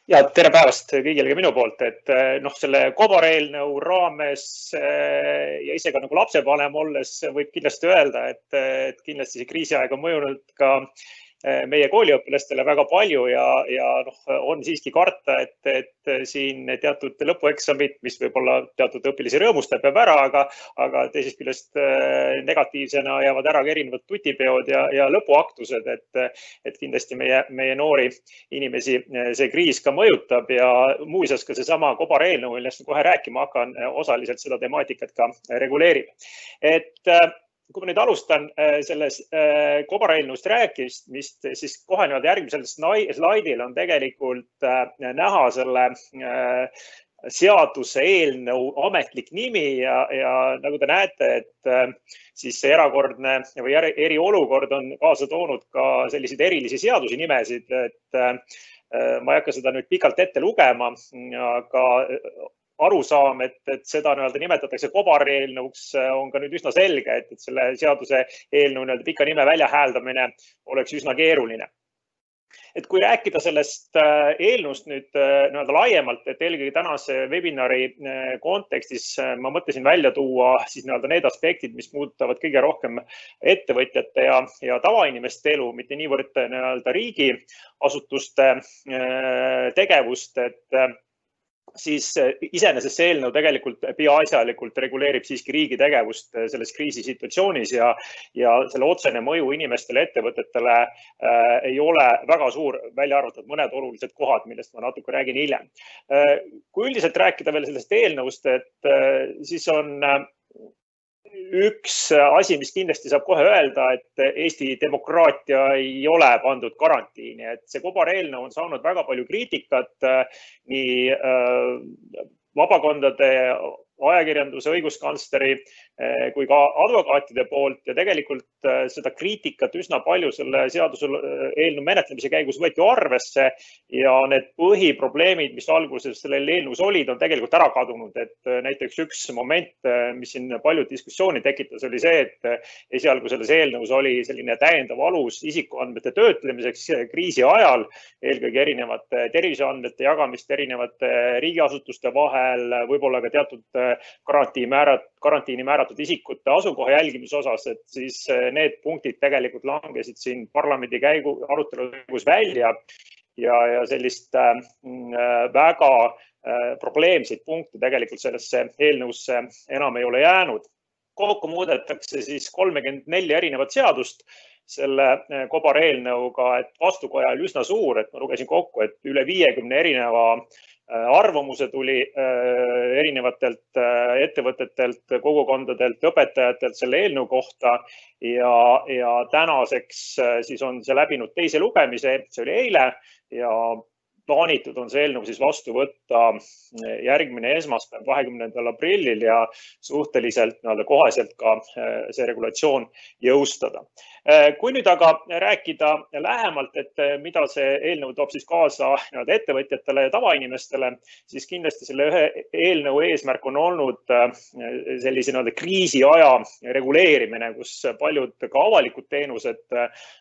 Ja tere päevast kõigile ka minu poolt, et selle kobareelnõu raames ja ise ka nagu lapsevanem olles võib kindlasti öelda, et kindlasti see kriisiaeg on mõjunud ka meie kooliõpilastele väga palju ja on siiski karta, et siin teatud lõpueksamid, mis võib-olla teatud õpilasi rõõmustab, jääb ära, aga teisest küljest negatiivsena jäävad ära ka erinevad tutipeod ja lõpuaktused, et kindlasti meie noori inimesi see kriis ka mõjutab ja muuseas ka seesama kobareelnõu, millest kohe rääkima hakkan, osaliselt seda temaatikat ka reguleerib. Kui ma nüüd alustan selles kobareelnõust rääkimist, siis kohe järgmisel slaidil on tegelikult näha selle seaduse eelnõu ametlik nimi ja nagu te näete, et siis see erakordne või eriolukord on kaasa toonud ka selliseid erilisi seadusi nimesid, et ma ei hakka seda nüüd pikalt ette lugema, aga arusaam, et seda nimetatakse kobareelnõuks, on ka nüüd üsna selge, et selle seaduse eelnõu pika nime väljahääldamine oleks üsna keeruline. Et kui rääkida sellest eelnõust nüüd laiemalt, et eelkõige tänase webinari kontekstis ma mõtlesin välja tuua siis need aspektid, mis muudavad kõige rohkem ettevõtjate ja tavainimeste elu, mitte niivõrd riigiasutuste tegevust, et siis iseenesest see eelnõu tegelikult peaasjalikult reguleerib siiski riigi tegevust selles kriisisituatsioonis ja selle otsene mõju inimestele, ettevõtetele ei ole väga suur, välja arvatud mõned olulised kohad, millest ma natuke räägin hiljem. Kui üldiselt rääkida veel sellest eelnõust, et siis on üks asi, mis kindlasti saab kohe öelda, et Eesti demokraatia ei ole pandud karantiini, et see kobareelnõu on saanud väga palju kriitikat nii vabakondade, ajakirjanduse, õiguskantsleri kui ka advokaatide poolt ja tegelikult seda kriitikat üsna palju selle seaduse eelnõu menetlemise käigus võeti arvesse ja need põhiprobleemid, mis alguses sellel eelnõus olid, on tegelikult ära kadunud. Et näiteks üks moment, mis siin palju diskussiooni tekitas, oli see, et esialgu selles eelnõus oli selline täiendav alus isikuandmete töötlemiseks kriisi ajal, eelkõige erinevate terviseandmete jagamist erinevate riigiasutuste vahel, võib-olla ka teatud karantiini määratud isikute asukoha jälgimise osas, et siis need punktid tegelikult langesid siin parlamendi arutelu käigus välja ja sellist väga probleemseid punkte tegelikult sellesse eelnõusse enam ei ole jäänud. Kokku muudetakse siis 34 erinevat seadust selle kobareelnõuga, et vastukoja oli üsna suur, et ma lugesin kokku, et üle 50 erineva arvamuse tuli erinevatelt ettevõtetelt, kogukondadelt, õpetajatelt selle eelnõu kohta ja tänaseks siis on see läbinud teise lugemise, see oli eile ja plaanitud on see eelnõu siis vastu võtta järgmine esmaspäev, 20. aprillil ja suhteliselt koheselt ka see regulatsioon jõustada. Kui nüüd aga rääkida lähemalt, et mida see eelnõu toob siis kaasa ettevõtjatele ja tavainimestele, siis kindlasti selle ühe eelnõu eesmärk on olnud sellise kriisiaja reguleerimine, kus paljud ka avalikud teenused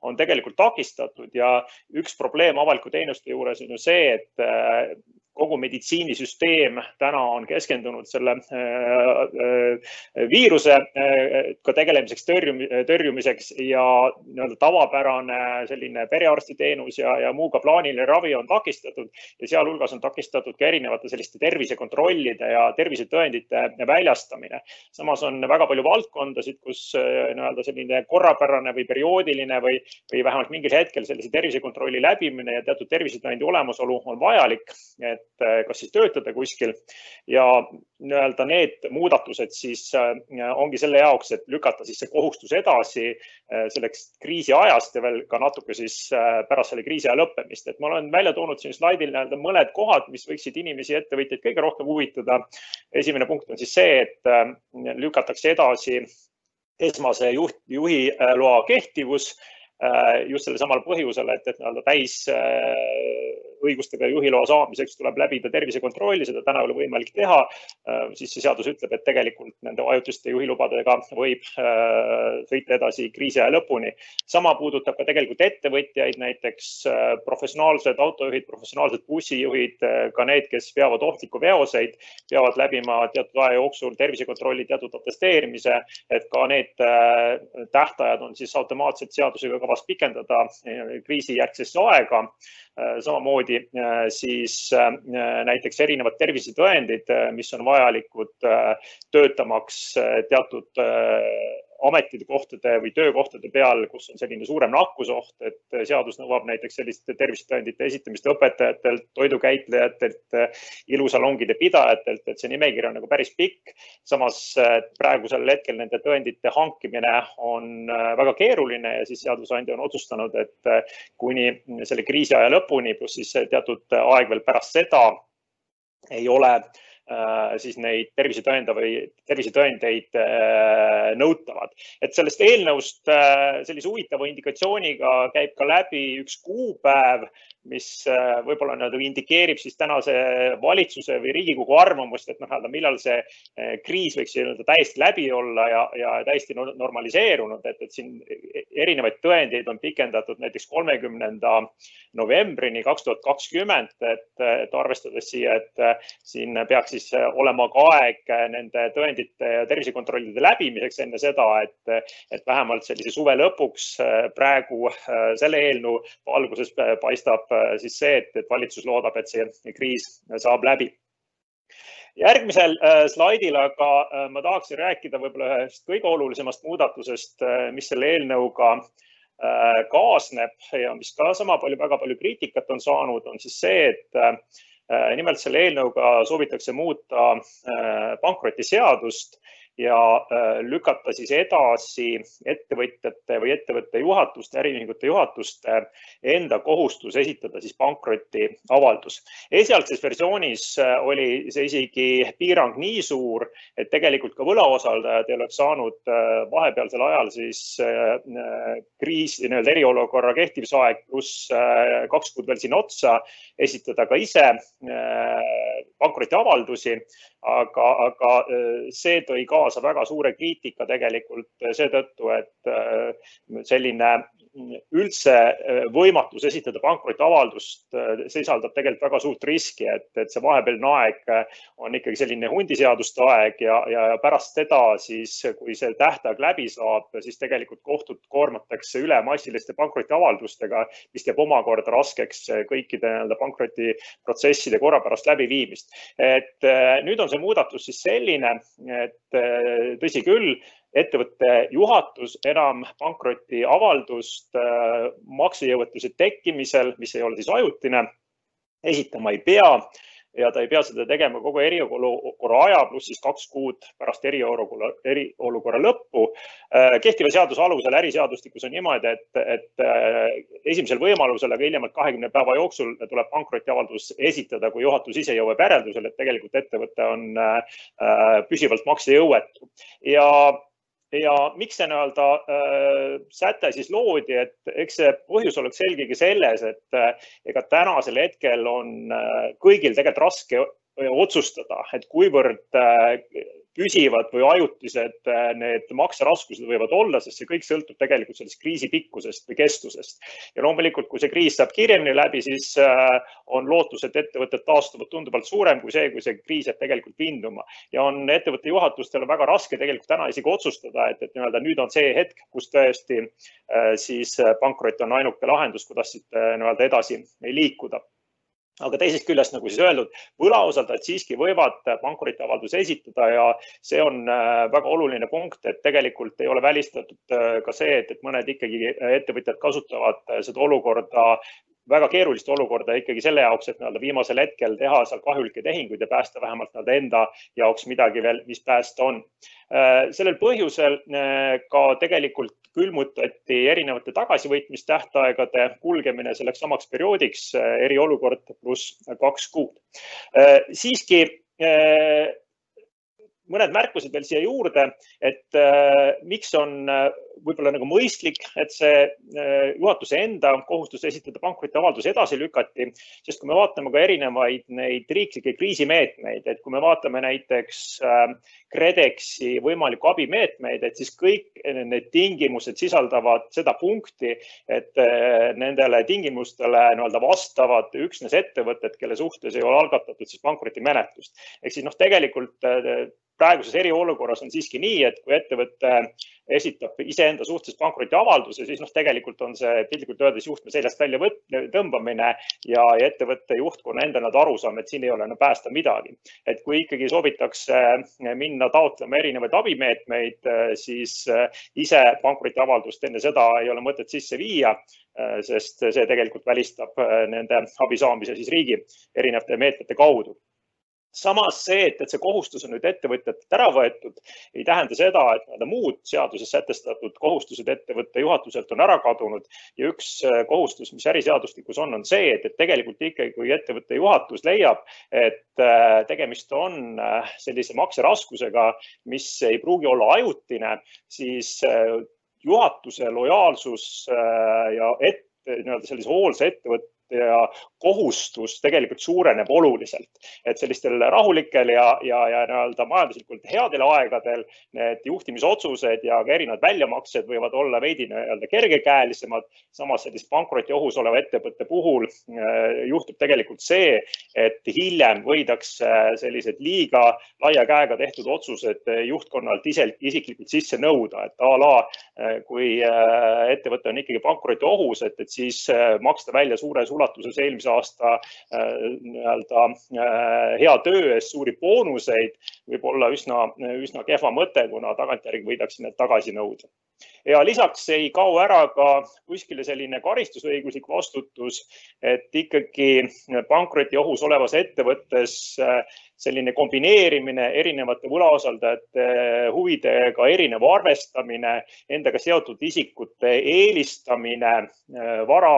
on tegelikult takistatud ja üks probleem avaliku teenuste juures on ju see, et kogu meditsiinisüsteem täna on keskendunud selle viiruse ka tegelemiseks, tõrjumiseks ja tavapärane selline perearstiteenus ja muu ka plaaniline ravi on takistatud ja sealhulgas on takistatud ka erinevate selliste tervisekontrollide ja tervisetõendite väljastamine. Samas on väga palju valdkondasid, kus selline korrapärane või perioodiline või vähemalt mingil hetkel sellise tervisekontrolli läbimine ja teatud tervisetõendi olemasolu on vajalik, et kas siis töötada kuskil ja need muudatused siis ongi selle jaoks, et lükata siis see kohustus edasi selleks kriisi ajast ja veel ka natuke siis pärast selle kriisi aja lõppemist. Et ma olen välja toonud siin slaidil mõned kohad, mis võiksid inimesi ja ettevõtjaid kõige rohkem huvitada. Esimene punkt on siis see, et lükatakse edasi esmase juhi loa kehtivus just selle samal põhjusel, et täis õigustega juhiloa saamiseks tuleb läbida tervisekontrolli, seda täna ei ole võimalik teha, siis see seadus ütleb, et tegelikult nende ajutiste juhilubadega võib sõita edasi kriisi aja lõpuni. Sama puudutab ka tegelikult ettevõtjaid, näiteks professionaalsed autojuhid, professionaalsed bussijuhid, ka need, kes veavad ohtlikku veoseid, peavad läbima teatud aja jooksul tervisekontrolli, teatud atesteerimise, et ka need tähtajad on siis automaatselt seadusega kavas pikendada kriisijärgsesse aega. Samamoodi siis näiteks erinevad tervisetõendid, mis on vajalikud töötamaks teatud ametikohtade või töökohtade peal, kus on selline suurem nakkusoht, et seadus nõuab näiteks selliste tervisetõendite esitamist õpetajatelt, toidukäitlejatelt, ilusalongide pidajatelt, et see nimekiri on nagu päris pikk. Samas praegusel hetkel nende tõendite hankimine on väga keeruline ja siis seadusandja on otsustanud, et kuni selle kriisi aja lõpuni, pluss siis teatud aeg veel pärast seda ei ole siis neid tervisetõendeid nõutavad. Et sellest eelnõust sellise huvitava indikatsiooniga käib ka läbi üks kuupäev, mis võib-olla indikeerib siis tänase valitsuse või Riigikogu arvamust, et millal see kriis võiks täiesti läbi olla ja täiesti normaliseerunud, et siin erinevaid tõendeid on pikendatud näiteks 30. novembrini 2020, et arvestades siia, et siin peaks siis olema ka aeg nende tõendite ja tervisekontrollide läbimiseks enne seda, et vähemalt sellise suve lõpuks praegu selle eelnõu valguses paistab siis see, et valitsus loodab, et see kriis saab läbi. Järgmisel slaidil aga ma tahaksin rääkida võib-olla ühest kõige olulisemast muudatusest, mis selle eelnõuga kaasneb ja mis ka väga palju kriitikat on saanud, on siis see, et nimelt selle eelnõuga soovitakse muuta pankrotiseadust ja lükata siis edasi ettevõtjate või ettevõtte juhatuste, äriühingute juhatuste enda kohustus esitada siis pankrotiavaldus. Esialgses versioonis oli see isegi piirang nii suur, et tegelikult ka võlausaldajad ei oleks saanud vahepealsel ajal siis kriisi, eriolukorra kehtivusaeg pluss 2 kuud veel siin otsa esitada ka ise pankrotiavaldusi, aga see tõi kaasa väga suure kriitika tegelikult seetõttu, et selline üldse võimatus esitada pankrotiavaldust sisaldab tegelikult väga suurt riski, et see vahepealne aeg on ikkagi selline hundiseaduste aeg ja pärast seda siis, kui see tähtaeg läbi saab, siis tegelikult kohtud koormatakse üle massiliste pankrotiavaldustega, mis teeb omakorda raskeks kõikide pankrotiprotsesside korrapärast läbiviimist. Et nüüd on see muudatus siis selline, et tõsi küll, ettevõtte juhatus enam pankrotiavaldust maksejõuetuse tekkimisel, mis ei ole siis ajutine, esitama ei pea ja ta ei pea seda tegema kogu eriolukorra aja pluss siis 2 kuud pärast eriolukorra lõppu. Kehtiva seaduse alusel äriseadustikus on niimoodi, et esimesel võimalusel, aga hiljemalt 20 päeva jooksul tuleb pankrotiavaldus esitada, kui juhatus ise jõuab järeldusele, et tegelikult ettevõte on püsivalt maksejõuetu. Ja miks see säte siis loodi, et eks see põhjus oleks selgegi selles, et ega tänasel hetkel on kõigil tegelikult raske otsustada, et kuivõrd püsivad või ajutised need makseraskused võivad olla, sest see kõik sõltub tegelikult sellest kriisi pikkusest või kestusest. Ja loomulikult, kui see kriis saab kiiremini läbi, siis on lootus, et ettevõtted taastuvad tunduvalt suurem kui see kriis jääb tegelikult vinduma. Ja on ettevõtte juhatustel väga raske tegelikult täna isegi otsustada, et nüüd on see hetk, kus tõesti siis pankrot on ainuke lahendus, kuidas edasi liikuda. Aga teisest küljest, nagu siis öeldud, võlausaldajad siiski võivad pankrotiavalduse esitada ja see on väga oluline punkt, et tegelikult ei ole välistatud ka see, et mõned ikkagi ettevõtjad kasutavad seda olukorda, väga keerulist olukorda ikkagi selle jaoks, et viimasel hetkel teha seal kahjulikke tehinguid ja päästa vähemalt enda jaoks midagi veel, mis päästa on. Sellel põhjusel ka tegelikult külmutati erinevate tagasivõitmistähtaegade kulgemine selleks samaks perioodiks eriolukord pluss 2 kuud. Siiski mõned märkused veel siia juurde, et miks on võib-olla nagu mõistlik, et see juhatuse enda kohustus esitada pankrotiavaldus edasi lükati, sest kui me vaatame ka erinevaid neid riiklikke kriisimeetmeid, et kui me vaatame näiteks KredExi võimalikku abimeetmeid, et siis kõik need tingimused sisaldavad seda punkti, et nendele tingimustele vastavad üksnes ettevõtted, kelle suhtes ei ole algatatud siis pankrotimenetlust. Ehk siis tegelikult praeguses eriolukorras on siiski nii, et kui ettevõte esitab iseenda suhtes pankrotiavalduse, siis tegelikult on see piltlikult öeldes juhtme seljast välja tõmbamine ja ettevõtte juhtkonna enda arusaam, et siin ei ole päästa midagi. Et kui ikkagi soovitakse minna taotlema erinevaid abimeetmeid, siis ise pankrotiavaldust enne seda ei ole mõtet sisse viia, sest see tegelikult välistab nende abi saamise siis riigi erinevate meetmete kaudu. Samas see, et see kohustus on nüüd ettevõtjatelt ära võetud, ei tähenda seda, et muud seaduses sätestatud kohustused ettevõtte juhatuselt on ära kadunud. Ja üks kohustus, mis äriseadustikus on see, et tegelikult ikkagi, kui ettevõtte juhatus leiab, et tegemist on sellise makseraskusega, mis ei pruugi olla ajutine, siis juhatuse lojaalsus ja sellise hoolsa ettevõtte ja kohustus tegelikult suureneb oluliselt, et sellistel rahulikel ja majanduslikult headel aegadel need juhtimisotsused ja ka erinevad väljamaksed võivad olla veidi kergekäelisemad. Samas sellist pankroti ohus oleva ettevõtte puhul juhtub tegelikult see, et hiljem võidakse sellised liiga laia käega tehtud otsused juhtkonnalt isiklikult sisse nõuda, et a la kui ettevõte on ikkagi pankroti ohus, et siis maksta välja suures ulatuses eelmise aasta hea töö eest suuri boonuseid võib olla üsna kehva mõte, kuna tagantjärgi võidakse need tagasi nõuda. Ja lisaks ei kao ära ka kuskile selline karistusõiguslik vastutus, et ikkagi pankroti ohus olevas ettevõttes selline kombineerimine erinevate võlausaldajate huvidega erinev arvestamine, endaga seotud isikute eelistamine vara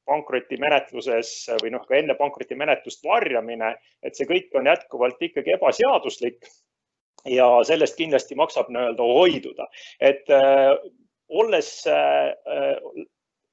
pankrotimenetluses või ka enne pankrotimenetlust varjamine, et see kõik on jätkuvalt ikkagi ebaseaduslik ja sellest kindlasti maksab hoiduda. Et olles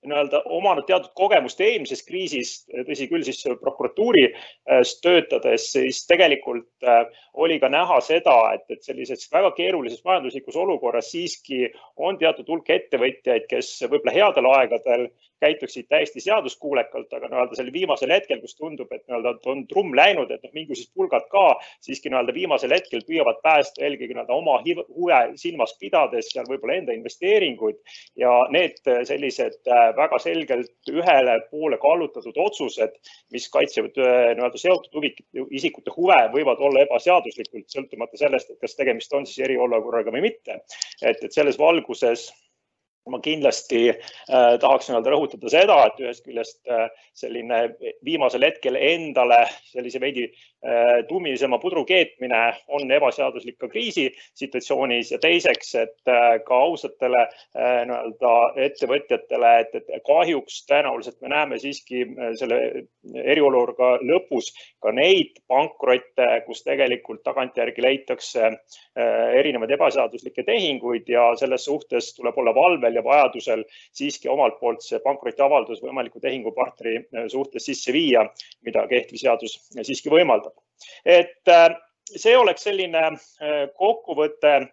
omanud teatud kogemust eelmisest kriisist, tõsi küll siis prokuratuuris töötades, siis tegelikult oli ka näha seda, et sellises väga keerulises majanduslikus olukorras siiski on teatud hulk ettevõtjaid, kes võib-olla headel aegadel käituksid täiesti seaduskuulekalt, aga sel viimasel hetkel, kus tundub, et on trumm läinud, et mingisugused pulgad ka siiski viimasel hetkel püüavad päästa eelkõige oma huve silmas pidades ja võib-olla enda investeeringuid ja need sellised väga selgelt ühele poole kallutatud otsused, mis kaitsevad seotud isikute huve, võivad olla ebaseaduslikult, sõltumata sellest, et kas tegemist on siis eriolukorraga või mitte. Et selles valguses ma kindlasti tahaks rõhutada seda, et ühest küljest selline viimasel hetkel endale sellise veidi tummisema pudru keetmine on ebaseaduslik ka kriisisituatsioonis ja teiseks, et ka ausatele ettevõtjatele, et kahjuks tõenäoliselt me näeme siiski selle eriolukorra lõpus ka neid pankrotte, kus tegelikult tagantjärgi leitakse erinevaid ebaseaduslikke tehinguid ja selles suhtes tuleb olla valvel ja vajadusel siiski omalt poolt see pankrotiavaldus võimaliku tehingupartneri suhtes sisse viia, mida kehtiv seadus siiski võimaldab. Et see oleks selline kokkuvõte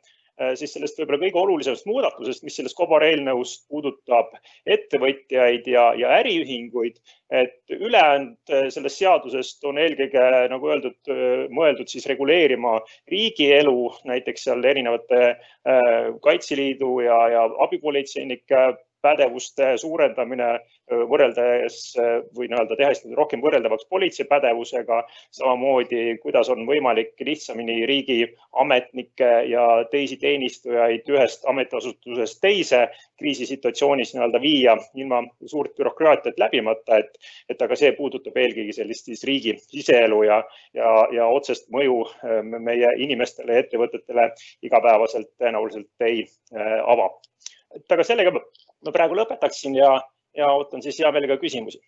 siis sellest võib-olla kõige olulisemast muudatusest, mis selles kobareelnõust puudutab ettevõtjaid ja äriühinguid, et ülejäänud sellest seadusest on eelkõige, nagu öeldud, mõeldud siis reguleerima riigielu, näiteks seal erinevate Kaitseliidu ja abipolitseinike pädevuste suurendamine võrreldes või tehes rohkem võrreldavaks politsei pädevusega, samamoodi kuidas on võimalik lihtsamini riigiametnikke ja teisi teenistujaid ühest ametiasutusest teise kriisisituatsioonis viia ilma suurt bürokraatiat läbimata, et aga see puudutab eelkõige sellist riigi siseelu ja otsest mõju meie inimestele ja ettevõtetele igapäevaselt tõenäoliselt ei ava. Et aga sellega ma praegu lõpetaksin ja ootan siis hea meelega küsimusi.